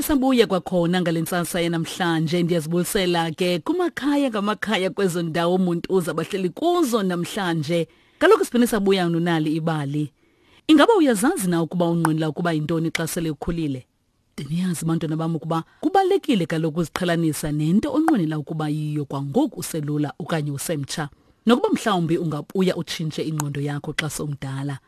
Siphinde sabuya kwakhona ngale ntsasa yanamhlanje. Ndiyazibulisela ke kumakhaya ngamakhaya kwezo ndawo umuntu uza bahleli kuzo namhlanje. Kaloku siphinde sabuya nonali ibali. Ingaba uyazazi na ukuba unqwenela ukuba yintoni xa sele ukhulile? Ndiniyazi bantwana bam ukuba kubalulekile kaloku uziqhelanisa nento onqwenela ukuba yiyo kwangoku uselula okanye usemtsha. Nokuba mhlawumbi ungabuya utshintshe ingqondo yakho xa sowumdala.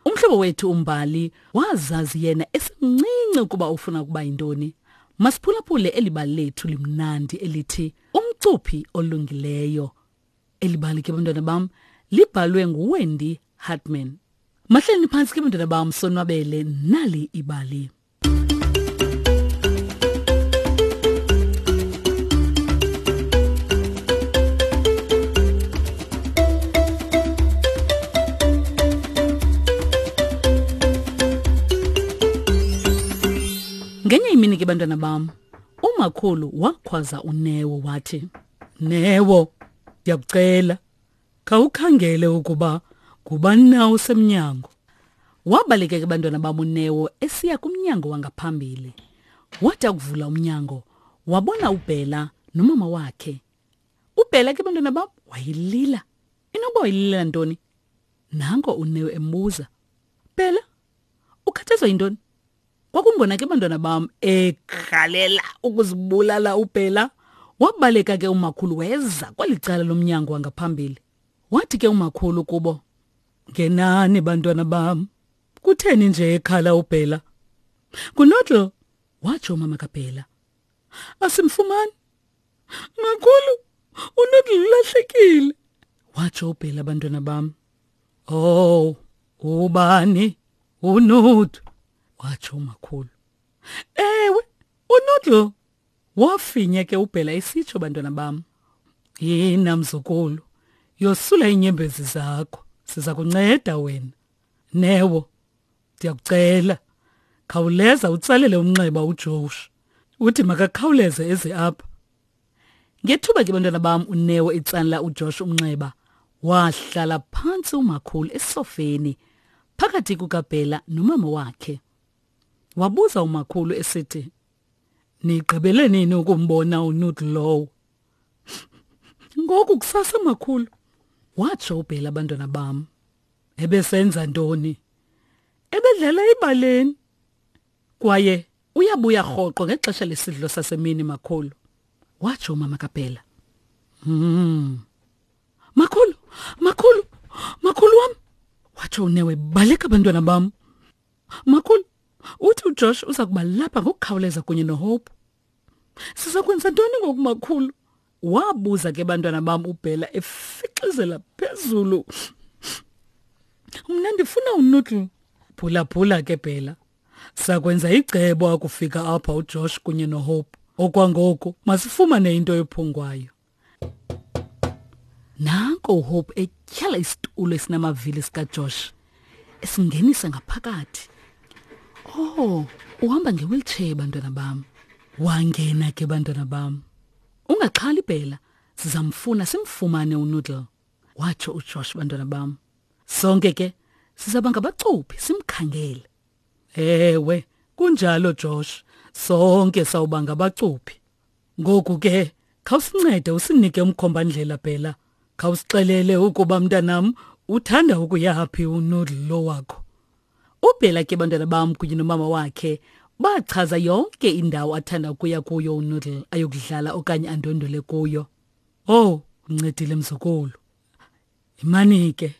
Umhlobo wethu uMbali wazazi yena esemncinci ukuba ufuna ukuba yintoni. Masiphulaphule eli bali lethu limnandi elithi Umcuphi Olungileyo. Eli bali ke bantwana bam libhalwe nguWendy Hartman. Mahleleni phantsi ke bantwana bam sonwabele nali ibali. Ngenye imini ke bantwana bam, umakhulu wakhwaza uNeo wathi, "Neo, ndiyakucela, khawukhangele ukuba ngubani na osemnyango." Wabaleka ke bantwana bam uNeo esiya kumnyango wangaphambili. Wathi akuvula umnyango, wabona uBhela nomama wakhe. UBhela ke bantwana bam wayelila. Inoba wayelilela ntoni? Nanko uNeo embuza, "Bhela, ukhathazwa yintoni?" Kwakungona ke bantwana bam ekhalela ukuzibulala uBhela. Wabaleka ke umakhulu weza kweli cala lomnyango wangaphambili. Wathi ke umakhulu kubo, "Ngenani bantwana bam. Kutheni nje ekhala uBhela?" "Ngunoodle," watsho umama kaBhela. "Asimfumani. Makhulu, uNoodle ulahlekile," watsho uBhela bantwana bam. "Oh, ubani? UNoodle," watsho umakhulu. "Ewe, uNoodle." Wafinya ke uBhela esitsho bantwana bam. "Yina mzukulu, yosula iinyembezi zakho, siza kunceda wena. Neo, ndiyakucela, khawuleza utsalele umnxeba uJosh, uthi makakhawuleze eze apha." Ngethuba ke bantwana bam uNeo etsalela uJosh umnxeba, wahlala phantsi umakhulu esofeni phakathi kukaBhela nomama wakhe. Wabuza umakhulu esithi, "Nigqibele nini ukumbona uNoodle lowo?" "Ngoku kusasa makhulu," watsho uBhela bantwana bam. "Ebesenza ntoni?" "Ebedlala ebaleni. Kwaye uyabuya rhoqo ngexesha lesidlo sasemini makhulu," watsho umama kaBhela. "Makhulu, makhulu, makhulu wam," watsho uNeo ebaleka bantwana bam. "Makhulu, uthi uJosh uza kuba lapha ngokukhawuleza kunye noHope. Siza kwenza ntoni ngoku makhulu?" Wabuza ke bantwana bam uBhela efixizela phezulu. "Mna ndifuna uNoodle." "Phulaphula ke Bhela, sakwenza icebo akufika apha uJosh kunye noHope. Okwangoku masifumane into ephungwayo." Nanko uHope etyhala isitulo esinamavili sikaJosh esingenisa ngaphakathi. "Oh, uhamba nge-wheelchair bantwana bam." Wangena ke bantwana bam. "Ungaxhali Bhela, sizamfuna simfumane uNoodle," watsho uJosh bantwana bam. "Sonke ke sizaba ngabacuphi simkhangele." "Ewe, kunjalo Josh, sonke sawuba ngabacuphi. Ngoku ke khawusincede usinike umkhombandlela Bhela. Khawusixelele ukuba mntanam uthanda ukuyaphi uNoodle lo wakho." UBhela ke bantwana bam kunye nomama wakhe bachaza yonke indawo athanda ukuya kuyo uNoodle ayokudlala okanye andwendwele kuyo. "Oh, uncedile mzukulu. Imani ke,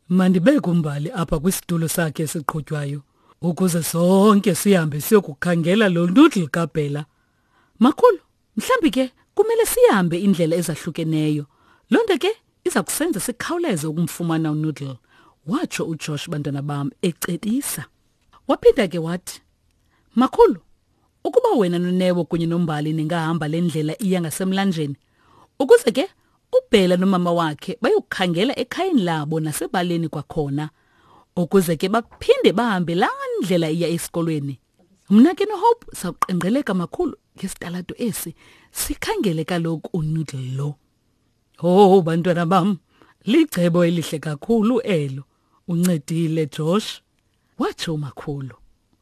mandibeke uMbali apha kwisitulo sakhe esiqhutywayo ukuze sonke sihambe siyokukhangela lo Noodle kaBhela. Makhulu, mhlambi ke kumele sihambe indlela ezahlukeneyo. Loo nto ke iza kusenza sikhawuleze ukumfumana uNoodle," watsho uJosh bantwana bam ecebisa. Waphinda ke wathi, "Makhulu, ukuba wena noNeo kunye noMbali ningahamba le ndlela iya ngasemlanjeni, ukuze ke uBhela nomama wakhe bayokukhangela ekhayeni labo nasebaleni kwakhona, ukuze ke baphinde bahambe laa ndlela iya esikolweni. Mna ke noHope sawuqengqeleka makhulu ngesitalato esi, sikhangele kaloku uNoodle lo." "Oh bantwana bam, licebo elihle kakhulu elo. Uncedile Josh," watsho umakhulu.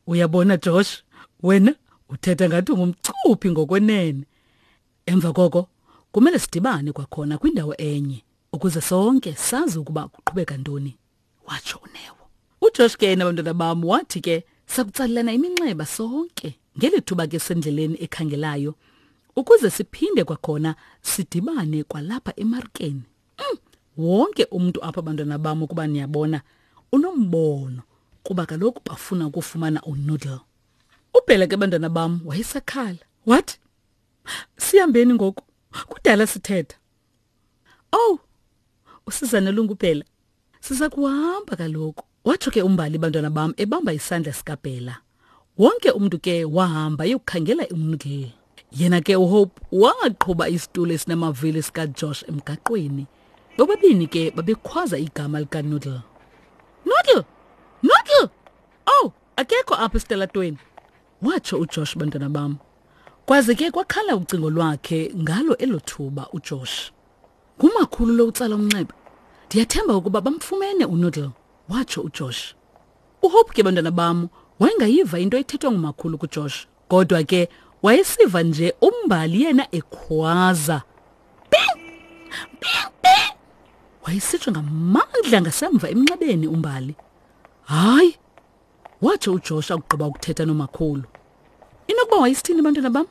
"Uyabona Josh, wena Uthetha ngathi ungumcuphi ngokwenene. Emva koko kumele sidibane kwakhona kwindawo enye ukuze sonke sazi ukuba kuqhubeka ntoni, watsho uNeo. UJosh ke yena bantwana bam wathi ke sakutsalelana iminxeba sonke ngeli thuba ke sendleleni ekhangelayo ukuze siphinde kwakhona sidibane kwalapha emarkeni. Wonke umntu apha bantwana bam ukuba niyabona unombono kuba kaloku bafuna ukufumana uNoodle. Ubhele ke bantwana bam wayesakhala wathi sihambeni ngoku kudala sithetha. Oh, usizana lungubhela siza kuhamba kaloku watsho ke umbali bantwana bam ebamba isandla sikabhela. Wonke umntu ke wahamba eyokukhangela uNoodle. Yena ke uHope waqhuba isitulo esinamavili sikaJosh emgaqweni. Bobabini ke babekhwaza igama likaNoodle. Noodle! Noodle! Oh, akekho apha esitalatweni, watsho uJosh bantwana bam. Kwaze ke kwakhala ucingo lwakhe ngalo elo thuba uJosh. Ngumakhulu lo utsala umnxeba. Ndiyathemba ukuba bamfumene uNoodle, watsho uJosh. UHope ke bantwana bam wayengayiva into ethethwa ngumakhulu kuJosh, kodwa ke wayesiva nje umbali yena ekhwaza. Bing! Bing! Bing! Wayesitsho ngamandla ngasemva emnxebeni umbali. Hayi, watsho uJosh akugqiba ukuthetha nomakhulu. Inokuba wayesithini bantwana bam?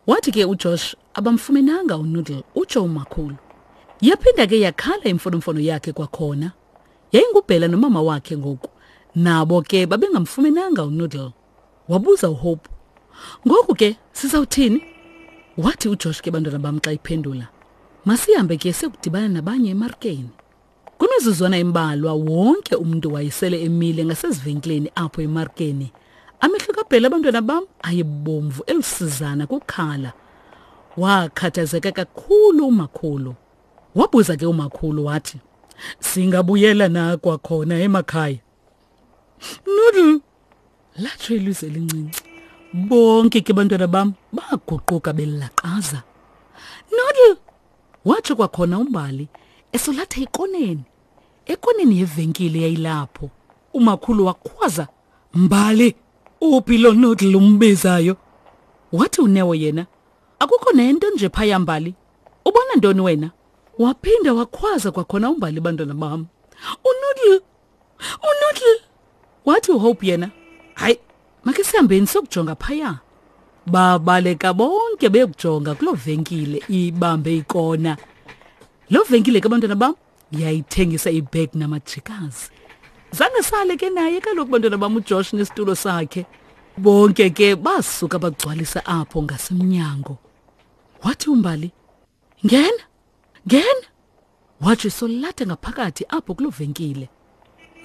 Wathi ke uJosh abamfumenanga uNoodle, utsho umakhulu. Yaphinda ke yakhala imfonomfono yakhe kwakhona. Yayingubhela nomama wakhe ngoku. Nabo ke babengamfumenanga uNoodle. Wabuza uHope. Ngoku ke sizawuthini? Wathi uJosh ke bantwana bam xa iphendula. Masihambe ke siyokudibana nabanye emarkeni. Kwimizuzwana embalwa wonke umntu wayesele emile ngasezivenkileni apho emarkeni. Amehlo kaBhela abantwana bam ayebomvu elusizana kukhala. Wakhathazeka kakhulu umakhulu. Wabuza ke umakhulu wathi, "Singabuyela na kwakhona emakhaya?" Noodle, latsho ilizwi elincinci. Bonke ke bantwana bam baguquka belaqaza. Noodle, watsho kwakhona uMbali esolatha ikoneni. Ekoneni yevenkile yayilapho. Umakhulu wakhwaza, "Mbali, uphi lo Noodle umbizayo?" Wathi uNeo yena, Akukho nento nje phaya Mbali. Ubona ntoni wena? Waphinda wakhwaza kwakhona uMbali bantwana bam. UNoodle! UNoodle! Wathi uHope yena, hayi, make sihambeni siyokujonga phaya. Babaleka bonke beyokujonga kuloo venkile ibambe ikona. Loo venkile ke bantwana bam yayithengisa ibhegi namajikazi. Zange sale ke naye kaloku bantwana bam uJosh nesitulo sakhe. Bonke ke basuka bagcwalisa apho ngasemnyango. Wathi uMbali, "Ngena, ngena." Watsho esolatha ngaphakathi apho kuloo venkile.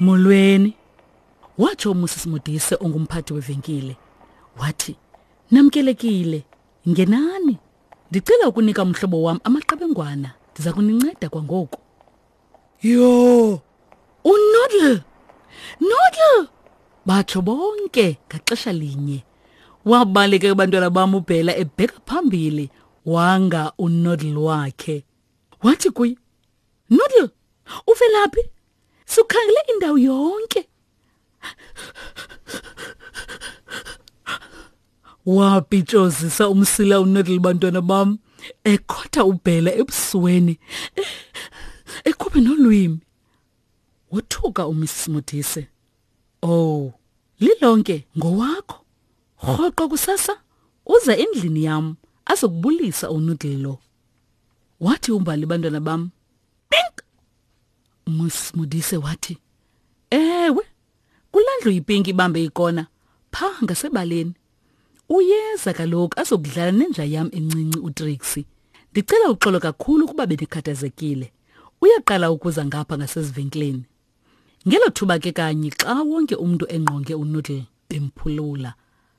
Molweni, watsho uMrs Modise ongumphathi wevenkile. Wathi, "Namkelekile, ngenani. Ndicela ukunika umhlobo wam amaqebengwana. Ndiza kuninceda kwangoku." Yho! UNoodle! Noodle! Batsho bonke ngaxesha linye. Wabaleka abantwana bam uBhela ebheka phambili wanga uNoodle wakhe. Wathi kuye, Noodle, uvelaphi? Sikhangele indawo yonke. Wapitshozisa umsila uNoodle bantwana bam ekhotha uBhela ebusweni ekhuphe nolwimi. Wothuka uMrs Modise. Oh, lilonke ngowakho. Rhoqo kusasa uza endlini yam azokubulisa uNoodle lo. Wathi uMbali bantwana bam, pink. Mrs Modise wathi, ewe, kulaa ndlu yipinki ibambe ikona pha ngasebaleni. Uyeza kaloku azokudlala nenja yam encinci uTrixie. Ndicela uxolo kakhulu ukuba bendikhathazekile. Uyaqala ukuza ngapha ngasezivenkileni. Ngelo thuba ke kanye xa wonke umntu engqonge uNoodle bemphulula,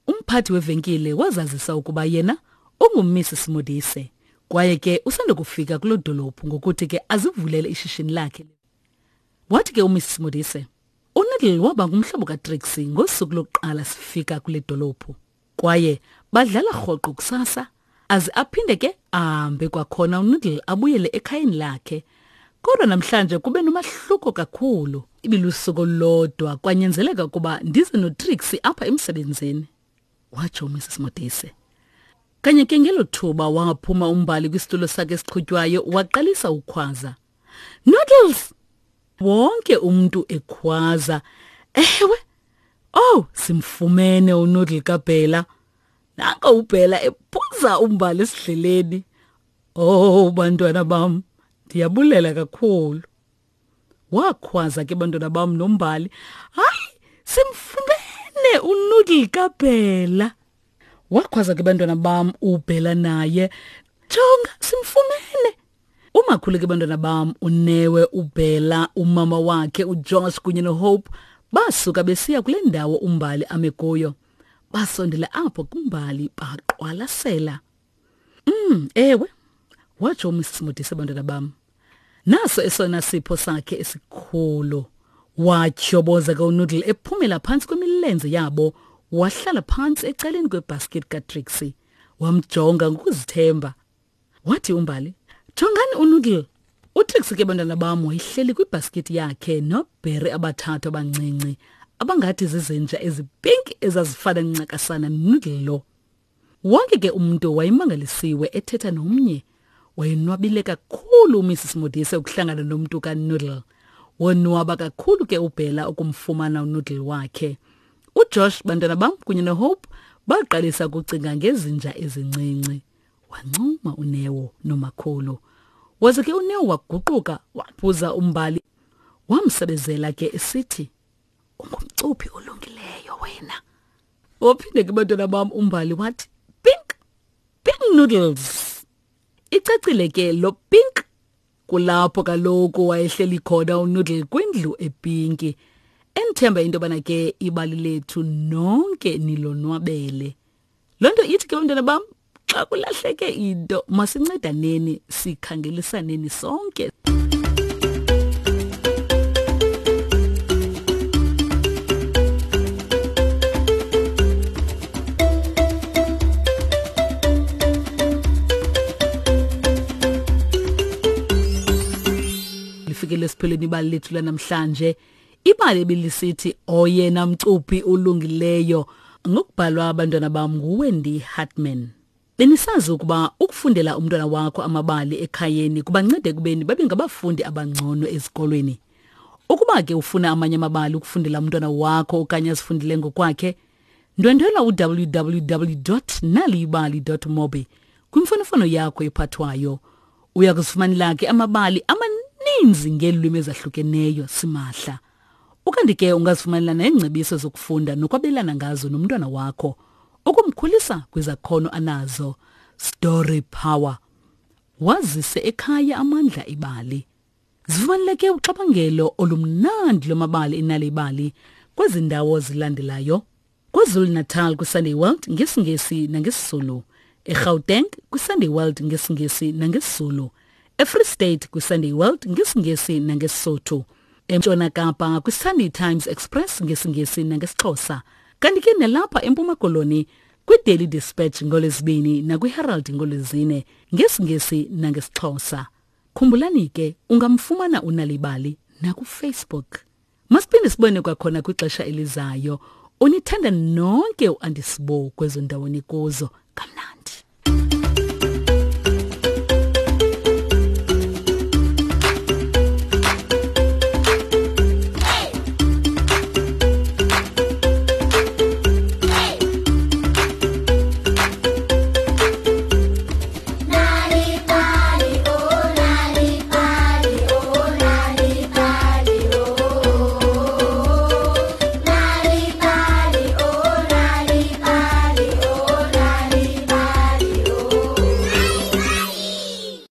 umphathi wevenkile wazazisa ukuba yena unguMrs Modise kwaye ke usandokufika kuloo dolophu ngokuthi ke azivulele ishishini lakhe. Wathi ke uMrs Modise, uNoodle waba ngumhlobo kaTrixie ngosuku lokuqala sifika kule dolophu. Kwaye badlala rhoqo kusasa aze aphinde ke ahambe kwakhona uNoodle abuyele ekhayeni lakhe. Kodwa namhlanje kube nomahluko kakhulu. Ibilusuku olulodwa kwanyanzeleka ukuba ndize noTrixie apha emsebenzini. Watsho uMrs Modise. Kanye ke ngelo thuba waphuma uMbali kwisitulo sakhe esiqhutywayo waqalisa ukhwaza. Noodles! Wonke umntu ekhwaza. Ewe! Oh, simfumene uNoodle kaBhela. Nanko uBhela ephuza uMbali esidleleni. Oh, bantwana bam, ndiyabulela kakhulu. Wakhwaza ke bantwana bam noMbali. Hayi, simfumene uNoodle kaBhela. Wakhwaza ke bantwana bam uBhela naye. Jonga, simfumene. Umakhulu ke bantwana bam uNewe, uBhela, umama wakhe uJosh kunye noHope basuka besiya kule ndawo uMbali ame kuyo. Basondela apho kuMbali baqwalasela. Ewe, watsho uMrs Modise bantwana bam. Naso esona sipho sakhe esikhulu. Watyhoboza ke uNoodle ephumela phantsi kwemilenze yabo, wahlala phantsi ecaleni kwebasket kaTrixie. Wamjonga ngokuzithemba. Wathi uMbali, "Jongani uNoodle." UTrixie ke bantwana bam wayehleli kwibhaskithi yakhe noobheri abathathu abancinci abangathi zizinja ezipinki ezazifana ncakasana noNoodle lo. Wonke ke umntu wayemangalisiwe ethetha nomnye. Wayenwabile kakhulu uMrs Modise ukuhlangana nomntu kaNoodle. Wonwaba kakhulu ke uBhela ukumfumana uNoodle wakhe. UJosh, bantwana bam, kunye noHope baqalisa ukucinga ngezinja ezincinci. Wancuma uNeo nomakhulu. Waze ke uNeo waguquka waphuza uMbali. Wamsebezela ke esithi, Ungumcuphi olungileyo wena. Waphinde ke bantwana bam uMbali wathi, Pink, pink noodles. Icacile ke lo pink kulapho kaloku wayehleli khona uNoodle kwindlu epinki. Endithemba into yobana ke ibali lethu nonke nilonwabele. Loo nto ithi ke bantwana bam, xa kulahleke into masincedaneni sikhangelisaneni sonke. Lifikele esiphelweni ibali lethu lanamhlanje. Ibali ebilisithi oyena mcuphi ulungileyo ngokubhalwa abantwana bam nguWendy Hartman. Benisazi ukuba ukufundela umntwana wakho amabali ekhayeni kubanceda ekubeni babe ngabafundi abangcono ezikolweni. Ukuba ke ufuna amanye amabali ukufundela umntwana wakho okanye azifundele ngokwakhe, ndwendwela u-www.naliyibali.mobi kwimfonomfono yakho ephathwayo. Uya kuzifumanela ke amabali amaninzi ngeelwimi ezahlukeneyo simahla. Ukanti ke ungazifumanela neengcebiso zokufunda nokwabelana ngazo nomntwana wakho ukumkhulisa kwizakhono anazo. Story Power. Wazise ekhaya amandla ibali. Zifumaneleke uxabangelo olumnandi lwamabali enalibali kwezi ndawo zilandelayo. KwaZulu-Natal kwiSunday World ngesiNgesi nangesiZulu, eGauteng kwiSunday World ngesiNgesi nangesiZulu, eFree State kwiSunday World ngesiNgesi nangeSisotho, eNtshona Kapa kwiSunday Times Express ngesiNgesi nangesiXhosa, kanti ke nalapha eMpuma Koloni kwiDaily Dispatch ngoLwezibini nakwiHerald ngoLwezine ngesiNgesi nangesiXhosa. Khumbulani ke ungamfumana uNalibali nakuFacebook. Masiphinde sibone kwakhona kwixesha elizayo. Unithanda nonke uAndisibo kwezo ndawo nikuzo. Kamnandi.